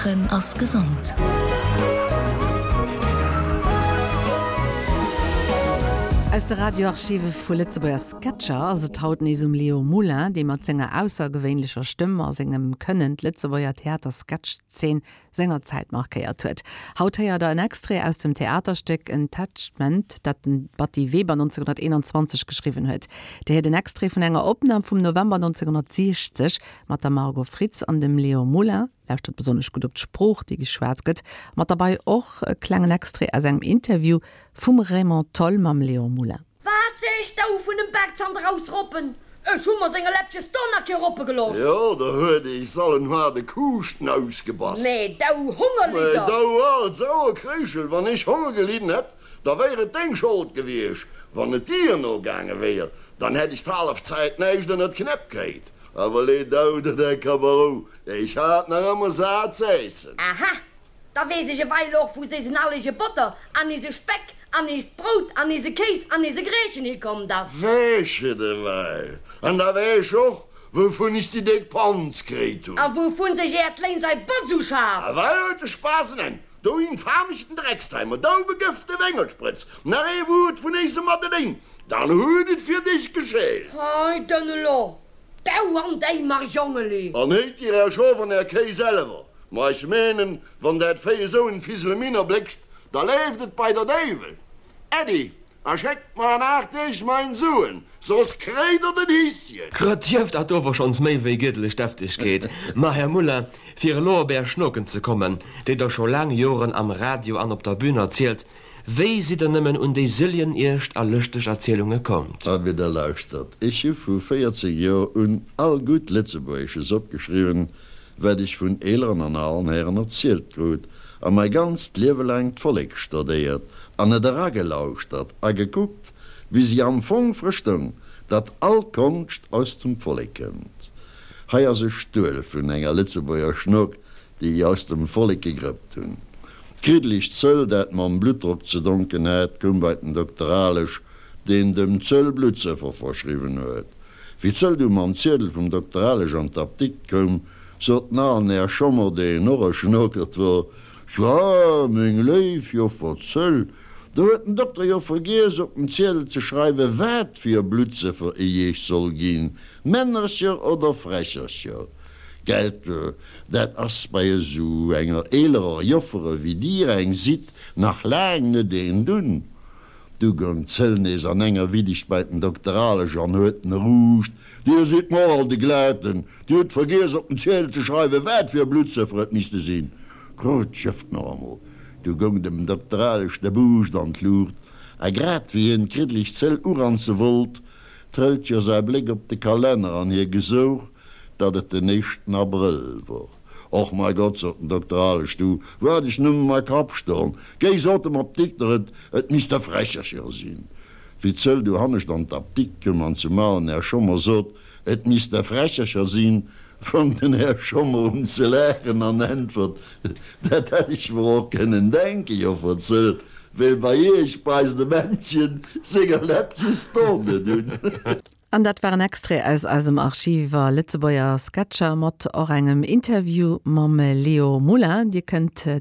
Laachen ass gesond. Aus de Radioarchive vu Lëtzebuerger Sketcher ass et haut nees um Leo Moulin, dee mat senger aussergewéinlecher Stëmm a sengem Kënnen d'Lëtzebuerger Theatersketch-Zeen sengerzäit markéiert huet. Haut héiert der en Extrait aus dem Theaterstéck Entachement, dat den Batty Weber 1921 geschriwwen huet. Dir héiert en Extrait vun enger Opnam vum November 1960 mat der Margot Fritz an dem Léon Moulin. Lauschtert besonnesch gutt op d'Sprooch, déi geschwat gëtt. Mat derbei och e klengen Extrait aus engem Interview vum Raymond Tholl mam Léon Moulin. Wat sees dou vun dem Baakzand erausroppen? Ech hu mer senger Läppches do nach kee roppe gelooss. Jo, der huet eis allen haarde Kuuschten ausgebass. Mee dou Hongerlidder! Mee dou al sauer Kréischel, wann ech Honger gelidden hätt, da wéier et deng Schold gewiescht. Wann et dir no gaange wéier, dann hätt ech d'hallef Zäit näischt ënnert d'Knäpp kréit. Awer lee dou der däi Kabarou, ech hat nach ëmmer sat z'äissen. Aha, Da weess ech eweil och, wou s'éisen allege Botter an eise Speck an eist Brout an eise Kéis an eise Greechen hikommt ass. Weess et eweil. An da weess ech och, wouvun ech déi déck Panz kréit hunn. A wouvun sech äert Léin sei Botz uschaf. Eweil huet de Spaass en Enn, dou infamechten Drecksteimer, dou begëfte Wéngertsprëtz, nach ee Wuert vun éisem Madeléin, dann huet et fir dech geschélt. Hei dënn elo, dou an déi Marjongeli! An héit dir är Schof an är Kéi selwer. Ma ech menen, wann dat Véi esou en Fiseleminer bléckst, da leeft et bei der Déiwel. Äddi, a schéckt mer an 8 Deeg mein Suen, soss kréit der den Hisschen. Grëtjëft hat ower schons méi wéi giedlech Deftegkeet. Ma, Här Muller, fir elo op Är Schnoken ze kommen, déi Der scho laang Joren am Radio an op der Bühn erzielt, wéi sidd Der nëmmen un déi sëlljen iescht a lëschteg Erzielunge kommt? Abee, da lauschtert, ech hu vu 14 Joer un all gutt Lëtzebuergesches opgeschriwwen, wat ech vun eeleren an alen Hären erzielt krut, a mei ganzt Liewe laang d'Vollek stodéiert an et eragelauschtert a gekuckt, bis ech am Fong verstoung, datt all Konscht aus dem Vollek kënnt. Hei ass e Stuel vun enger Lëtzebuerger Schnok, déi ech aus dem Vollek gegrëppt hunn. D'kriddeleg Zëll, dat mam Bluttdrock ze donken hat, koum bei den Dokter Alesch, deen dem Zëll Bluttsëffer verschriwwen huet. Wéi d'Zëll du mam Ziedel vum Dokter Alesch an d'Apdikt koum, sot den alen Här Schommer, deen och e Schnokert wor, Tja, meng léif Joffer Zëll, do huet den Dokter jo vergiess op den Ziedel ze schreiwen, wat fir e Bluttsëffer e Iech soll ginn, Männercher oder Frächercher. Gelt, dat ass bei esou enger eelerer Joffere wéi Dir eng sidd, nach laang net een dunn. Du goung d'Zëll nees an enger Widdicht bei den Dokter Alesch an huet en eruucht, Dir sidd mer all de Glaten, Dir hutt vergiess op den Ziedel ze schreiwen, wat fir e Bluttsëffer et misste sinn. Krut d'Schëfft nach emol. Du goung dem Dokter Alesch de Buuscht an d'Luucht, a grad wéi hien d'kriddeleg Zëll uranze wollt, trëllt jo säi Bléck op de Kalenner an hie gesouch, datt et den éischten Abrëll wor. Och mei Gott, sot den Dokter Alesch, du, wou hat ech nëmme mei Kapp stoen? Géi, sot dem Apdikter, et, et misst e Frächercher sinn. Wéi d'Zëll du hannescht an d'Apdikt koum an zum alen Här Schommer sot, et misst e Frächercher sinn, fong den Här Schommer un ze laachen an äntwert, Dat hätt ech mer och kënnen denken, Joffer Zëll, well bei Iech beisst e Männchen senger Läppches d'Don net un. An dat war en Extrait aus eisem Archiv iwwer Lëtzebuerger Sketcher mat och engem Interview mam Leo Moulin. Dir kënnt.